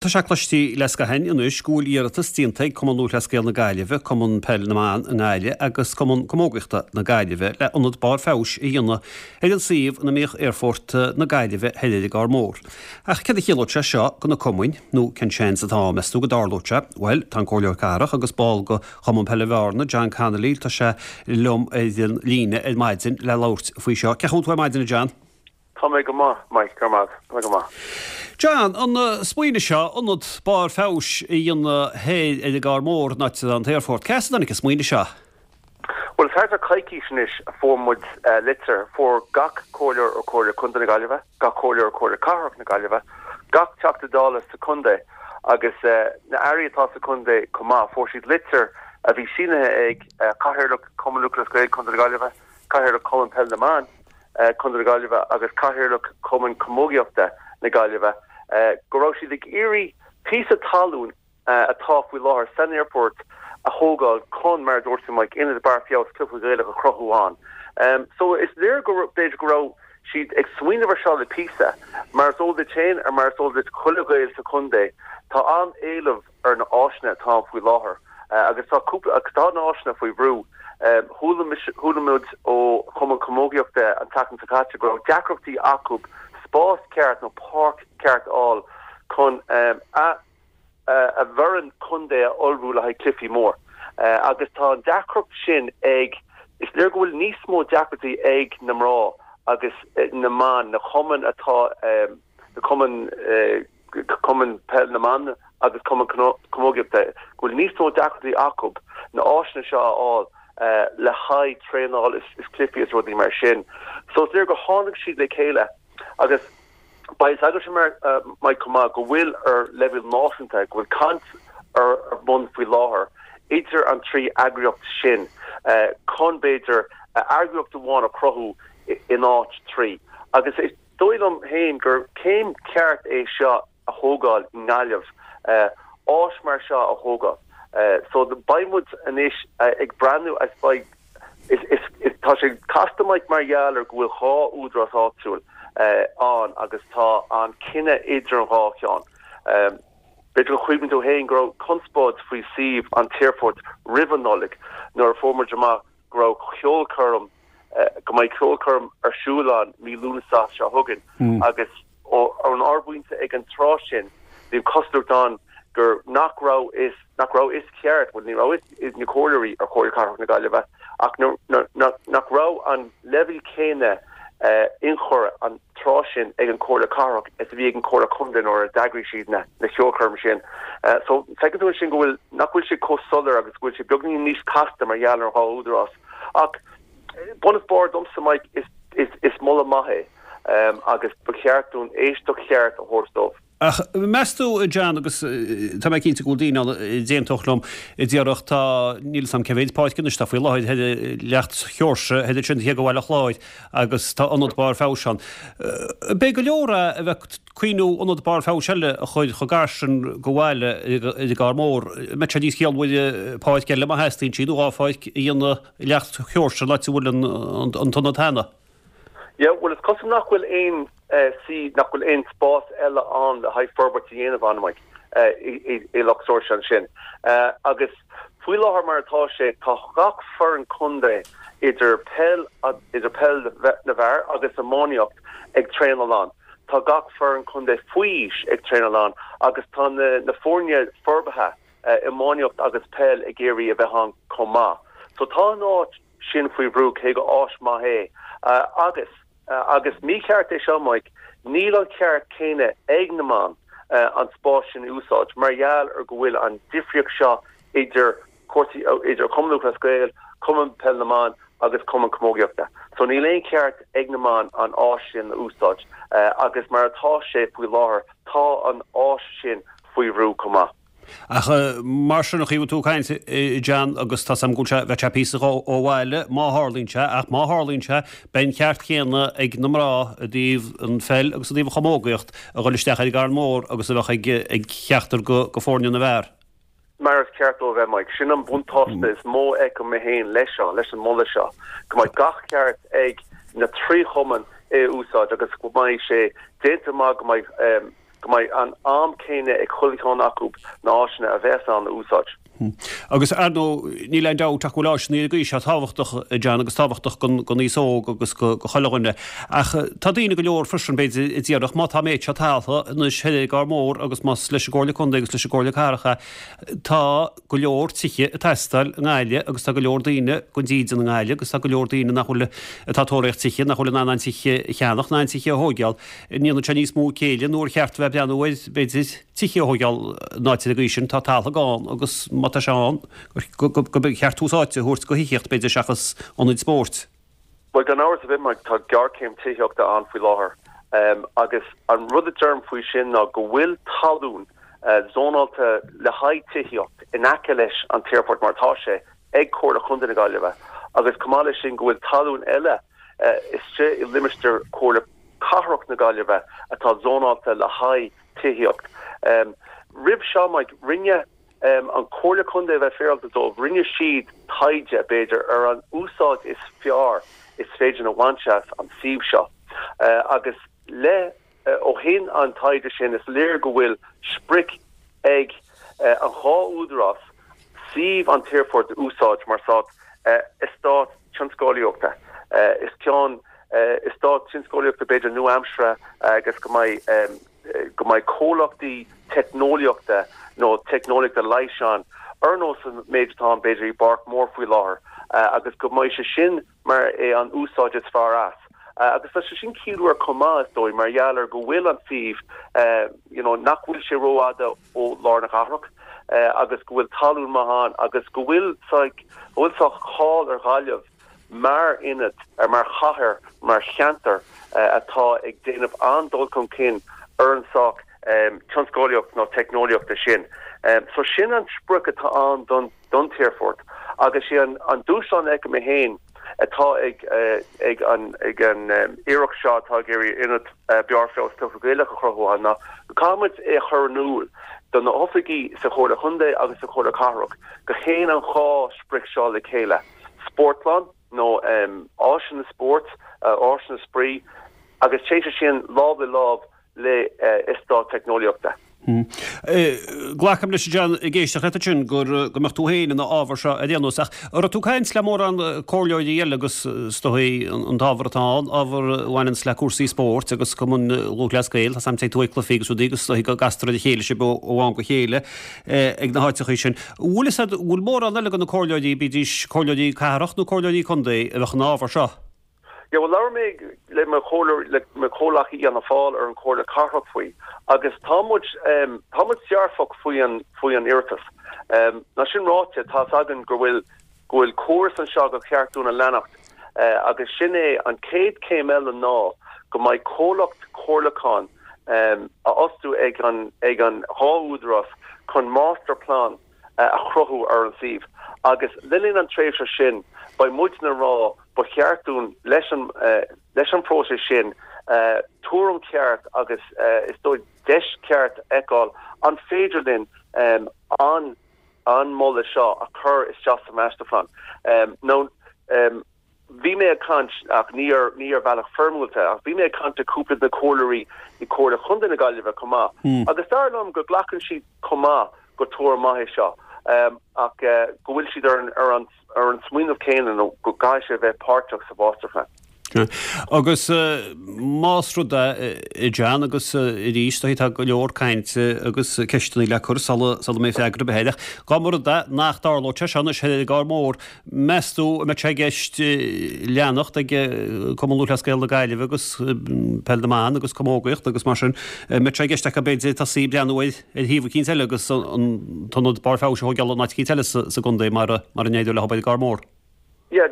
Tá sé cloiste le scaitheamh anois go bhfuil iarratas déanta ag Cumann Lúthchleas Gael na Gaillimhe, Cumann Peil na mBan i nGaillimh agus Cumann Camógaíochta na Gaillimhe le ionad barr feabhais a dhéanamh ar an suíomh ina mbíodh Aerfort na Gaillimhe thoir ar an gCarn Mór. Ach céard a chiallódh sé seo do na cumainn, nó cén seans atá ann, meas tú, go dtarlódh sé? Bhuel, tá an Comhairleoir Cathrach agus ball de Chumann Peile Bhearna, John Connolly, tá sé liom ar an líne ar maidin le labhairt faoi seo. Cén chaoi a bhfuil tú ar maidin, a John? Tá mé go maith, Mike, go raibh maith agat. Tá mé go maith. John, an smaoineamh seo, ionad barr feabhais a dhéanamh thoir ar an gCarn Mór, an áit atá an t-aerfort, cé as a dtáinig an smaoineamh seo? Bhuel, is thart ar coicís anois a fuair muid litir, fuair gach comhairleoir ó Chomhairle Contae na Gaillimhe, gach comhairleoir ó Chomhairle Cathrach na Gaillimhe, gach Teachta Dála sa chontae agus na airí atá sa chontae chomh maith, fuair siad litir a bhí sínithe ag Cathaoirleach Chumann Lúthchleas Gael Contae na Gaillimhe, Cathaoirleach Chumann Peil na mBan Contae na Gaillimhe agus Cathaoirleach Chumann Camógaíochta na Gaillimhe go raibh siad ag iarraidh píosa talún atá faoi láthair san aerfort a thógáil chun, mar a dúirt tú Mike, ionad barr feabhais cluiche Gaelach a chruthú ann. So is léir go b'fhéidir go raibh siad ag smaoineamh ar seo le píosa. Mar is eol duit féin ar mar is eol duit chuile Ghael sa chontae, tá an-éileamh ar na áiseanna atá ann faoi láthair agus tá cúpla agus tá na áiseanna faoi bhrú. Chuala mise, chuala muid ó Chumann Camógaíochta an tseachtain seo caite go raibh deacrachtaí acu spás ceart nó páirc ceart a fháil chun a a bhfoireann contae a ullmhú le haghaidh cluichí mór agus tá an deacracht sin ag, is léir go bhfuil níos mó deacrachtaí ag na mná agus na mban, na cumainn atá, na cumainn. Cumann Peil na mBan agus Cumann Camógaíochta, go bhfuil níos mó deacrachtaí acu na áiseanna seo a fháil le haghaidh traenáil is cluichí is rudaí mar sin. So is léir gur tháinig siad le chéile agus beidh a fhios agatsa Mike chomh maith go bhfuil ar leibhéal náisiúnta, go bhfuil caint ar bun faoi láthair idir an 3 eagraíocht sin chun b'fhéidir eagraíocht amháin a chruthú in áit 3 agus is dóigh liom féin gur céim ceart é seo a thógáil i nGaillimh, áis mar seo a thógáil. So beidh muid anois ag breathnú is beidh, is, is, is, tá sé casta Mike mar gheall ar go bhfuil dhá údarás áitiúil ann agus tá an cinneadh idir an dhá cheann. B'fhéidir go gcuimhníonn tú féin go raibh conspóid faoi suíomh an t-aerfoirt roimh an Nollaig nuair a fuair muid amach go raibh ceolchoirm, go mbeidh ceolchoirm ar siúl ann mí Lúnasa seo chugainn agus ón ár bpointe ag an tráth sin bhí an chosúlacht ann gur nach raibh is nach raibh fhios ceart, bhuel ní raibh fhios ag na comhairleoirí ar Chomhairle Cathrach na Gaillimhe ach nach raibh an leibhéal céanna ionchur an tráth sin ag an Chomhairle Cathrach is a bhí ag an Chomhairle Contae nuair a d'eagraigh siad na ceolchoirm sin. So feiceann tú ansin go bhfuil, nach bhfuil sé chomh soiléir agus go bhfuil sé beagnín níos casta mar gheall ar an dhá údarás. Ach bun is barr domsa, Mike, is, is, is moladh maith é agus ba cheart dúinn éisteacht cheart a thabhairt dóibh. Ach meas tú, a John, agus tá mé cinnte go bhfuil daoine ann a d'aontódh liom, a déarfadh, tá, níl 'fhios a'm cé mhéid páirc anois atá faoi láthair thoir i Leacht Sheoirse, thoir ansin thiar go Bhaile Chláir agus tá ionad barr feabhais ann. Ab é go leor é a bheith ag cuimhniú ionad barr feabhais eile a chur chomh gar sin go bhaile ar an gCarn Mór. An mbeadh sé níos ciallmhaire páirc eile má theastaíonn sí nó dhá pháirc a dhéanamh i Leacht Sheoirse an áit a bhfuil an t-ionad cheana? Yeah, bhuel is cosúil nach bhfuil aon sí, nach bhfuil aon spás eile ann le haghaidh forbairt a dhéanamh ann, Mike, i Loch Seoirse ansin. Agus faoi láthair mar atá sé, tá gach foireann contae idir peil, idir peil na bhfear agus iománaíocht ag traenáil ann. Tá gach foireann contae faoi aois ag traenáil ann agus tá na foirne forbartha, iománaíocht agus peil ag iarraidh a bheith ann chomh maith. So tá an áit sin faoi bhrú, cé go áis maith é. Agus, agus mícheart é seo, Mike, níl an ceart céanna ag na mban an spás sin a úsáid mar gheall ar go bhfuil an difríocht seo idir cúrsaí, idir Cumann Lúthchleas Gael, Cumann Peil na mBan agus Cumann Camógaíochta. So níl aon cheart ag na mban an áis sin a úsáid agus mar atá sé faoi láthair tá an áis sin faoi bhrú chomh maith. Ach mar sin, an chaoi a bhfuil tú ag caint, a John, agus tá's a'm go bhfuil sé, bheadh sé píosa ó bhaile má tharlaíonn sé, ach má tharlaíonn sé, beidh an ceart céanna ag na mná i dtaobh an pheil agus i dtaobh an chamógaíocht a dhul isteach ar an gCarn Mór agus a bheadh ag ag ceachtar go go foirne na bhfear. Mar is ceart dó a bheith, Mike. Sin an buntáiste is mó a fheicim mé féin leis seo, leis an moladh seo, go mbeidh gach ceart ag na trí chumann é a úsáid agus go mbeidh sé déanta amach go mbeidh. go mbeidh an am céanna ag chuile cheann acu na áiseanna a bheas ann a úsáid. Agus ar ndóigh, níl aon dabht ach go bhfuil áiseanna ar an gcaoi seo tábhachtach, a John, agus tábhachtach don aos óg agus go chuile dhuine. Ach tá daoine go leor freisin, b'fhéidir, a déarfadh, má tá an méid seo taltha anois thoir ar an gCarr Mór agus más leis an gComhairle Contae agus leis an gComhairle Cathrach é, tá go leor tithe ag teastáil i nGaillimh agus tá go leor daoine gan dídean i nGaillimh agus tá go leor daoine nach bhfuil, atá ag tóraíocht tithe, nach bhfuil in ann an tithe a cheannach ná an tithe a thóigeáil. An ndéanann sé níos mó céille nó ar cheart a bheith ag breathnú ar, b'fhéidir, tithe a thóigeáil in áit ar an gcaoi sin, tá talamh ann agus má tá sé ann, go mba cheart tús áite a thabhairt go thithíocht, b'fhéidir, seachas ionaid spóirt. Bhuel, gan amhras ar bith, Mike, tá géarchéim tithíochta ann faoi láthair agus an rud a deirim faoi sin ná go bhfuil talún zónáilte le haghaidh tithíocht in aice leis an t-aerfort mar atá sé ag Comhairle Chontae na Gaillimhe agus chomh maith leis sin go bhfuil talún eile istigh i limistéar Chomhairle Cathrach na Gaillimhe atá zónáilte le haghaidh tithíocht. Roimh seo, Mike, rinne an Chomhairle Contae, a bheith féaráilte dóibh, rinne siad taighde, b'fhéidir, ar an úsáid is fearr is féidir a bhaint as an suíomh seo agus le ó shin an taighde sin is léir go bhfuil sprioc ag an dhá údarás suíomh an t-aerfort a úsáid mar sórt eastát tionsclaíochta. Is ceann eastát tionsclaíochta b'fhéidir nua-aimseartha agus go mbeidh go mbeidh comhlachtaí teicneolaíochta nó teicneolaíochta leighis ann ar nós an méid atá ann b'fhéidir i bPáirc Mór faoi láthair agus go mbeidh sé sin mar é an úsáid is fearr as. Agus tá sé sin ciallmhar chomh maith, is dóigh, mar gheall ar go bhfuil an suíomh, you know, nach bhfuil sé rófhada ó lár na cathrach agus go bhfuil talún maith ann agus go bhfuil go bhfuil saghas cáil ar Ghaillimh mar ionad, mar chathair, mar cheantar atá ag déanamh an-dul chun cinn ar an saghas tionsclaíocht nó teicneolaíochta sin. So sin an sprioc atá ann don don t-aerfort agus sé an dúshlán a fheicim mé féin atá ag ag an ag an iarracht seo atá ag iarraidh ionad Barr Feabhais Cluiche Gaelach a chruthú ann ná go caithfidh muid é a chur in iúl do na hoifigigh sa Chomhairle Chontae agus sa Chomhairle Cathrach go théann an dhá sprioc seo le chéile, spórtlann nó áiseanna spóirt, áiseanna spraoi agus téann sé sin lámh le lámh le eastát teicneolaíochta. Glacaim leis, a John, ag éisteacht leat ansin, go mbeadh tú féin ina fhábhar seo ar aon nós. Ach an raibh tú ag caint le mórán comhairleoirí eile agus is dóigh an t-ábhar atá ann, ábhar a bhaineanns le cúrsaí spóirt agus Cumann Lúthchleas Gael, tá 's a'm téann tú ag cluichí agus rudaí agus is dóigh go gcastar ar a chéile sibh ó am go chéile ag na háiteachaí sin. An bhfuil fhios a'd, an bhfuil mórán eile de na comhairleoirí, bídís comhairleoirí cathrach nó comhairleoirí contae, a bheadh ina fhábhar seo? Yeah, bhuel, labhair mé le mo chomhairleoir, le mo chomhleacaí i Fhianna Fáil ar an Chomhairle Cathrach faoi agus tá muid, tá muid dearfach faoi an, faoi an iarratas. Ná sin ráite, tá 'fhios againn go bhfuil, go bhfuil córas anseo gur cheart dúinn a leanacht agus sin é an chéad chéim eile ná go mbeidh comhlacht comhairliúcháin a fhostú ag an, ag an dhá údarás chun masterplan a chruthú ar an suíomh agus le linn an tréimhse sin beidh muidne ag rá ba cheart dúinn leis an leis an phróiseas sin tuairim cheart agus is dóigh deis cheart a fheiceáil an féidir linn an an moladh seo a chur isteach sa masterplan nó Bhí mé ag caint, ach ní ar ní ar bhealach foirmiúlta, ach bhí mé ag caint le cúpla de na comhairleoirí i Comhairle Chontae na Gaillimhe chomh maith, agus dar liom go nglacann siad chomh maith gur tuairim maith é seo, ach go bhfuil siad ar an ar an ar an smaoineamh céanna nó go gcaithfidh sé a bheith páirteach sa mháistirphlean. Agus más rud é, a John, agus arís, tá go leor cainte agus ceisteanna le cur sula sula mbeidh freagra ar bith air, ach dá mba rud é nach dtarlódh sé seo anois ar an gCarr Mór, Meas tú an mbeadh sé i gceist leanacht ag Cumann Lúthchleas Gael na Gaillimhe agus Peil na mBan agus Camógaíocht agus mar sin, an mbeadh sé i gceist acu b'fhéidir tosaí ag breathnú ar shuíomh eicínt eile agus an t-ionad barr feabhais a thóigeáil in áit eicínt eile sa gcontae mara n-éireoidh leo ar an gCarr Mór? Yeah,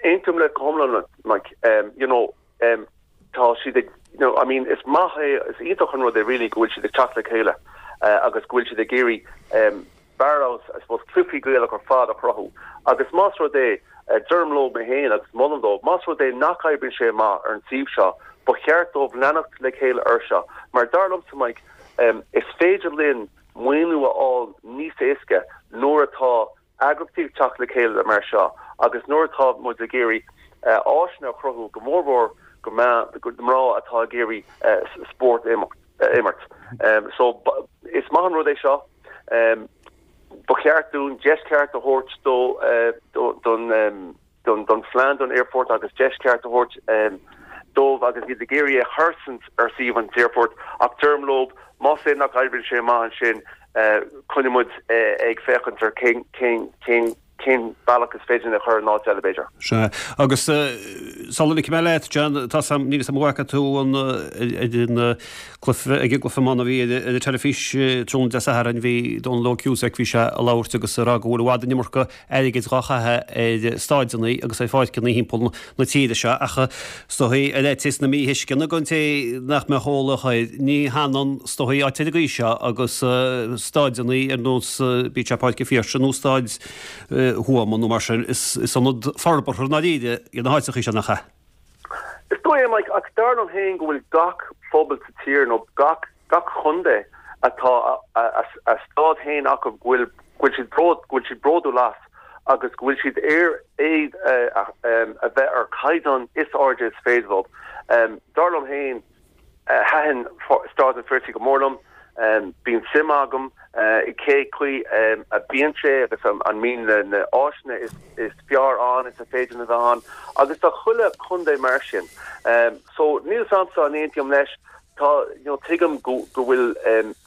aontaím leat go hiomlán, Mike. You know, tá siad ag, you know, I mean, is maith é, is iontach an rud é really go bhfuil siad ag teacht le chéile agus go bhfuil siad ag iarraidh barr fheabhais, I suppose, cluichí Gaelach ar fad a chruthú. Agus más rud é, deirim leo mé féin agus molaim dóibh, más rud é nach oibríonn sé amach ar an suíomh seo, ba cheart dóibh leanacht le chéile air seo. Mar dar liomsa, Mike, is féidir linn maoiniú a fháil níos éasca nuair atá eagraíochtaí ag teacht le chéile mar seo agus nuair atá muid ag iarraidh áiseanna a chruthú, go mórmhór do mná atá ag iarraidh spórt a imirt. imirt. So is maith an rud é seo. Ba cheart dúinn deis ceart a thabhairt dó don don phlean don aerfort agus deis ceart a thabhairt dóibh agus iad ag iarraidh é a chur ar suíomh an aerfoirt ach deirim leo más é nach oibríonn sé amach ansin coinneoidh muid ag féachaint ar cén cén cén cén bealach is féidir linn é a chur in áit eile b'fhéidir. Sea. Agus sula ligfidh mé leat, John, tá 's a'm, níl 'fhios a'm an bhfaca tú an ar an cluiche, ag an gcluiche iomána a bhí ar an teilifís tráthnóna Dé Sathairn, bhí Dónal Óg Cusack, bhí sé ag labhairt agus ag rá go bhfuil i bhfad an iomarca airgid dhá chaitheamh ar stáideanna agus ar pháirceanna thimpeall na tíre seo ach is dóigh ar fhaitíos na míthuisceana don té nach mbeadh eolach air, ní hionann is dóigh áit ar an gcaoi seo agus stáideanna ar nós bíodh sé Páirc an Phiarsaigh nó Stáid Thuama nó mar sin, is ionad forbartha i ndáiríre iad na háiteachaí seo, nach ea? Is dóigh é, Mike, ach dar liom féin go bhfuil gach phobal sa tír nó gach gach chontae atá a stáid féin acu go bhfuil go bhfuil siad bród go bhfuil siad bródúil as agus go bhfuil siad ar iad a bheith ar chaighdeán is airde is féidir leo. Dar liom féin thaitin Stáid an Phiarsaigh go mór liom. Bíonn suim agam i cé chaoi a bíonn sé agus an mbíonn na áiseanna is fearr ann is a féidir a bheith ann agus tá chuile chontae mar sin. So níl 'fhios a'msa an aontaím leis. Tá, you know, tuigim go go bhfuil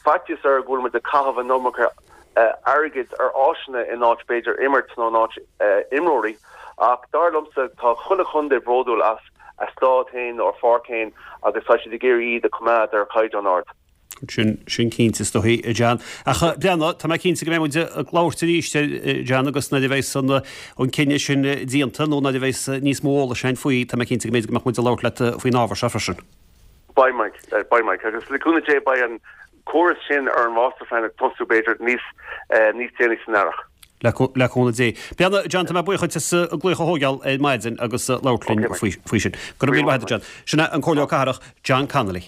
faitíos air go bhfuil muid ag caitheamh an iomarca airgid ar áiseanna in áit b'fhéidir imirt nó in áit imreoirí ach dar liomsa tá chuile chontae bródúil as a stáid féin nó a pháirc féin agus tá siad ag iarraidh iad a choimeád ar chaighdeán ard. Sin, sin cinnte is dóigh, a John. Ach breathnaigh, tá mé cinnte go mbeidh muid ag labhairt arís, a John, agus nuair a bheas an, an cinneadh sin déanta nó nuair a bheas níos mó eolais againn faoi, tá mé cinnte go mb'fhéidir go mbeadh muid ag labhairt leat faoin ábhar seo freisin. Beidh Mike, beidh Mike. Agus le cúnamh Dé beidh an córas sin ar an Masterplan ag tosú b'fhéidir níos, níos déanaí san earrach. Le cúnamh Dé. Breathnaigh, John, tá mé buíoch duit as an glaoch a thógáil ar maidin agus labhairt linn faoi sin. Go raibh míle maith agat, John. Sin é an Comhairleoir Cathrach, John Connolly.